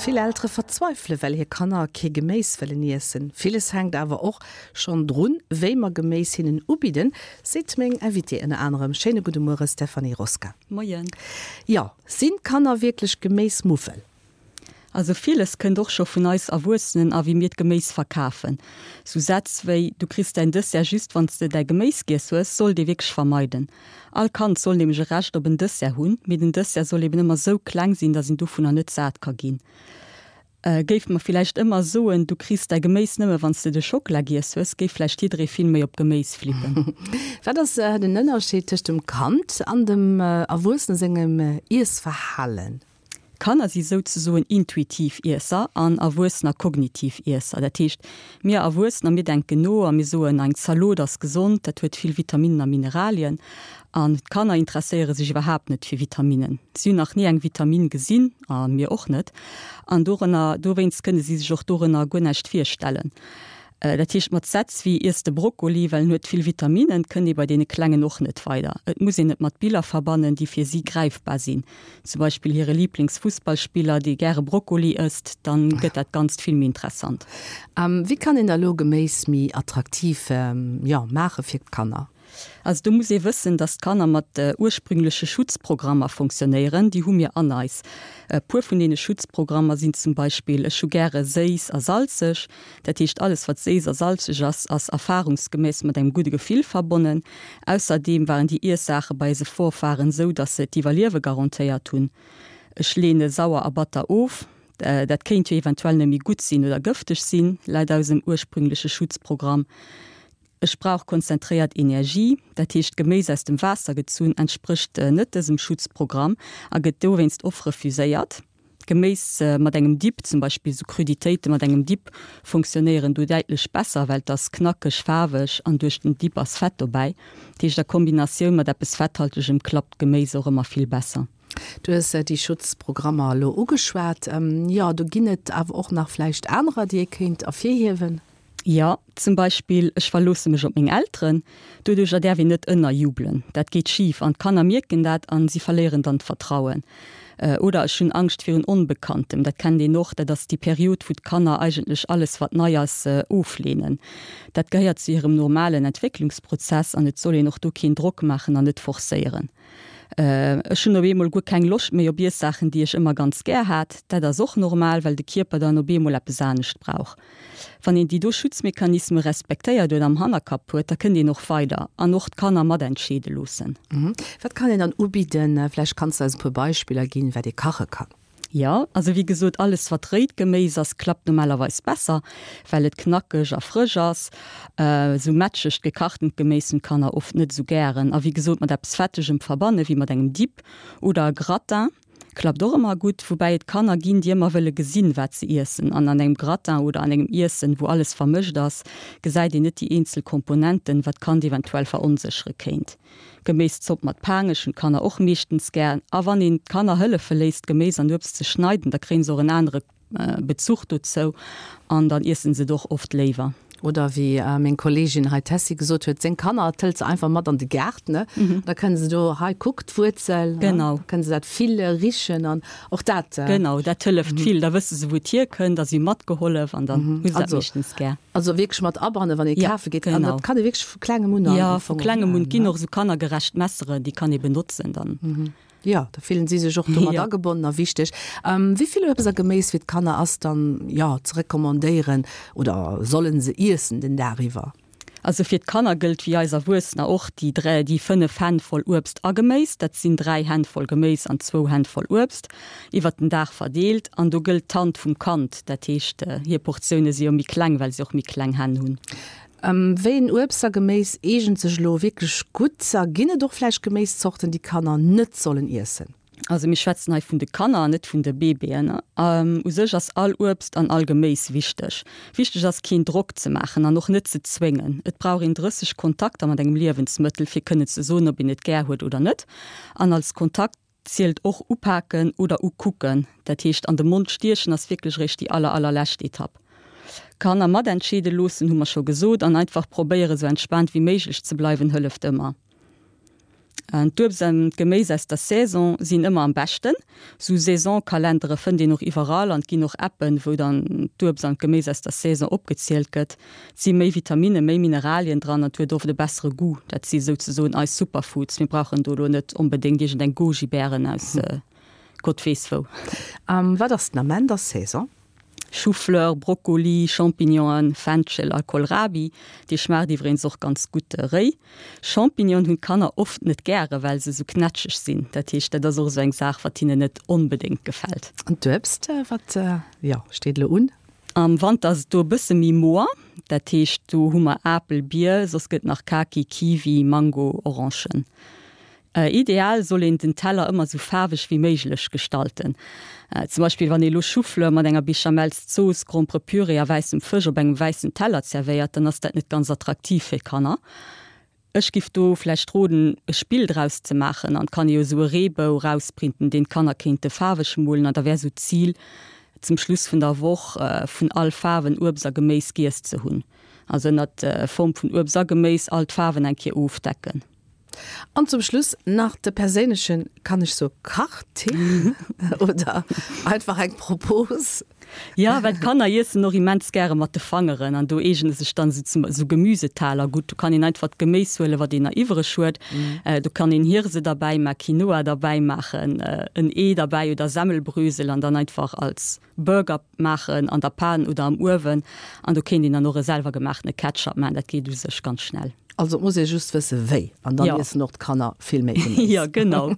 Vill Eltere verzweifele well hir Kanner kee Geméis wëllen iessen. Villes hänkt awer och schonn drun, wéi mer Geméis hinnen ubidden, seet meng Invitée ënner anerem. Schéine gudde Muere Stéphanie Rosca. Moien. Jo, sinn d'Kanner wierklech Geméismuffel? Also villes kënnt och scho vun eis Erwuessenen a wéi mir d'Geméis verkafen. Sou Sätz wéi Du kriss däin Dessert just wann s de däi Geméis giess hues sollt ee wierklech vermeiden. All Kand soll nämlech e Recht op en Dessert hunn, mee den Dessert soll eben ëmmer sou kleng sinn, dass een dovunner net sat ka ginn. Géife mer villäicht ëmmer soen, Du kriss däi Geméis nëmme wann s de de Schockela giess hues, géif vläicht jidderee vill méi op Geméis flippen. Wat ass den Ënnerscheed tëscht dem Kand an dem Erwuessene sengem Iessverhalen? Kanner si souzesoen intuitiv Iesser an Erwuessener kognitiv Iesser. Dat heescht, mir Erwuessener, mir denken no a mir soen, eng Zalot ass gesond, dat huet vill Vitaminnen a Mineralien. An d'Kanner interesséiere sech iwwerhaapt net fir Vitaminnen. Si hunn nach ni eng Vitaminn gesinn, a mir och net. An dorënner, dowéinst kënne si sech och dorënner guer näischt virstellen. Dat heescht, mat Sätz wéi Iess de Brokkoli, well en huet vill Vitaminnen, kënnt ee bei deene Klengen och net weider. Et muss een et mat Biller verbannen, déi fir si gräifbar sinn. Zum Beispill hire Liiblingsfussballspiller, dee gäre Brokkoli ësst, dann gëtt dat Ganzt vill méi interessant. Wéi kann een da lo Geméis méi attraktiv, jo, maache fir d'Kanner? Also do muss ee wëssen, dass d'Kanner mat ursprüngleche Schutzprogrammer fonctionnéieren. Déi hu mir an eis. E puer vun deene Schutzprogrammer sinn zum Beispill, Ech hu gäre séiss a salzeg. Dat heescht, alles wat séiss a salzeg ass, ass erfahrungsgemäss mat engem gudde Gefill verbonnen. Ausserdeem waren déi Iessaache bei eise Vorfahren esou, dass se d'Iwwerliewe garantéiert hunn. Ech leene sauer a batter of. Dat kéint jo eventuell net méi gutt sinn oder gëfteg sinn, laut eisem ursprüngleche Schutzprogramm. Ech brauch konzentréiert Energie, dat heescht Geméis aus dem Waasser gezunn entsprécht net dësem Schutzprogramm a gëtt dowéinst oft refuséiert. Geméis mat engem Dip, zum Beispill sou Cruditéite mat engem Dip, funktionéieren do däitlech besser, well et ass knackeg, faarweg an duerch den Dip ass Fett dobäi. Dat heescht a Kombinatioun mat eppes Fetthaltegem klappt Geméis och ëmmer vill besser. Du hues déi Schutzprogrammer elo ugeschwat. Jo, do ginn et awer och nach vläicht anerer, déi ee kéint ervirhiewen. Jo, zum Beispill, ech verloosse mech op meng Elteren. Doduercher däerf een net ënnerjubelen. Dat geet schif an d'Kanner mierken dat an si verléieren dann d'Vertrauen. Oder ech hunn Angscht virun Onbekanntem. Dat kennt een och, dat ass déi Period, wou d'Kanner eigentlech alles, wat nei ass, ofleenen. Dat gehéiert zu hirem normalen Entwécklungsprozess an et soll een och do keen Drock maachen an net forcéieren. Ech hunn op eemol guer keng Loscht méi op Iessaachen, déi ech ëmmer ganz gär hat. Dat ass och normal, well de Kierper dann op eemol eppes anescht brauch. Wann een déi do Schutzmechanisme respektéiert oder am Hannerkapp huet, da kënnt een och weider an och d'Kanner matentscheede loossen. Wat kann een dann ubidden? Vläicht kanns de eis e puer Beispiller ginn, wat ee kache kann. Jo, also wéi gesot, alles wat réit Geméis ass, klappt normalerweis besser, well et knackeg a frësch ass. Esou mätschegt gekachtent Geméis hunn d'Kanner oft net esou gären. A wéi gesot, mat eppes Fettegem verbanne wéi mat engem Dip oder e Gratin klappt och ëmmer gutt. Woubäi et Kanner ginn, déi ëmmer wëlle gesinn, wat se iessen. An an engem Gratin oder an engem Iessen, wou alles vermëscht ass, gesäit een net déi eenzel Komponenten, wat d'Kand eventuell veronséchere kéint. Geméiszopp mat Paangech hunn d'Kanner och meeschtens gär. A wann een d'Kanner hëllefe léisst Geméis an Uebst ze schneiden, da kréien se och en anere Bezuch dozou an dann iessen se et och oft léiwer. Oder wéi meng Kolleegin hei d'Tessy gesot huet, seng Kanner hëlt se einfach mat an de Gaart, ne? Da kënne se do, hei kuck d'Wuerzel, Genau. da kënne se dat fille, richen an och dat. Genau, dat hëlleft vill. Da wësse se wou et hierkënnt a si hu matgehollef an dann hu se dat meeschtens gär. Also wierklech mat abannen, wann ee kafe geet. An dat kann ee wierklech vu klengem un an. Jo, vu klengem un. Et ginn och esou kannergerecht Messeren, déi kann ee benotzen dann. Jo, da fillen si sech och domat agebonnen a wichteg. Wéi vill Uebst a Geméis fir d'Kanner ass dann, jo, ze recommandéieren oder sollen se iessen den Dag iwwer? Also fir d'Kanner gëllt wéi eis Erwuessener och déi 3, déi 5 Hänn voll Uebst a Geméis, dat sinn 3 Hänn voll Geméis an zwou Hänn voll Uebst, iwwert den Dag verdeelt. An do gëllt d'Hand vum Kand, dat heescht hir Portioune si jo méi kleng, well si och méi kleng Hänn hunn. Wéi en Uebst a Geméis eegent sech elo wierklech gutt a ginn et och vläicht Geméiszorten, déi Kanner net sollen iessen? Also mir schwätzen hei vun de Kanner an net vun de Baby'en. U sech ass all Uebst an all Geméis wichteg. Wichteg ass keen Drock ze maachen an och net ze zwéngen. Et brauch een 30 Kontakter mat engem Liewensmëttel fir kënnen ze soen ob een et gär huet oder net. An als Kontakt zielt och upaken oder ukucken. Dat heescht an de Mond stiechen ass wierklech eréischt déi aller allerlescht Etapp. Kanner matentscheede loossen hu mer scho gesot an einfach probéiere sou entspaant wéi méiglech ze bleiwen hëlleft ëmmer. D'Uebst an d'Geméis aus der Saison sinn ëmmer am beschten. Sou Saisonkalendere fënnt een och iwwerall an et ginn och Appen, wou dann d'Uebst an d'Geméis aus der Saison opgezielt gëtt. Et si méi Vitaminen, méi Mineralien dran an et huet oft e bessere Goût. Dat si souzesoen eis Superfoods. Mir brauchen do elo net onbedéngt iergendeng Goji-Bären aus Gott weess wou. A wat ass den Ament a Saison? Choufleur, Brokkoli, Champignonen, Fenchel a Kohlrabi, dee schmaacht iwwregens och ganz gutt réi. Champignonen hunn d'Kanner oft net gäre well se sou knätscheg sinn. Dat heescht dat ass och esou eng Saach wat hinnen net onbedéngt gefält. An d'Uebst, wat jo steet elo un? Am Wanter ass et do e bësse méi moer, dat heescht do hu mer Apel, Bier, soss gëtt nach Kaki, Kiwi, Mango, Orangen. Ideal soll een den Teller ëmmer sou faarweg wéi méiglech gestalten. Zum Beispill wann ee lo Choufleur mat enger Béchamelszooss, Gromperepüree a wäissem Fësch op engem wäissen Teller zerwéiert, dann ass dat net ganz attraktiv fir d'Kanner. Ech giff do vläicht roden e Spill draus ze maachen an et kann ee jo sou e Reebou rausprinten, deen d'Kanner kéinte faarweg molen an da wär sou d'Zil zum Schluss vun der Woch vun all Faarwen Uebst a Geméis giess ze hunn. Also ënnert Form vun Uebst a Geméis all d'Faarwen eng Kéier ofdecken. An zum Schluss nach de perséinlechen, kann ech soe Kachtipp oder einfach eng Propos? Jo, well d'Kanner iessen och immens gäre mat de Fangeren an do eegene sech dann esou esou Gemüsetaler gutt. Do kann een einfach d'Geméis huelen, wat een nach iwwereg huet. Do kann een Hirse derbäi maachen, Quinoa derbäi maachen, en Ee derbäi oder Semmelbrösel an dann einfach als Burger maachen an der Pan oder am Uewen an do kéint een dann och e selwer gemaachene Ketchup maachen, dat geet u sech ganz schnell. Also et muss ee just wësse wéi an dann iessen och d'Kanner vill méi Geméis. Jo, genau.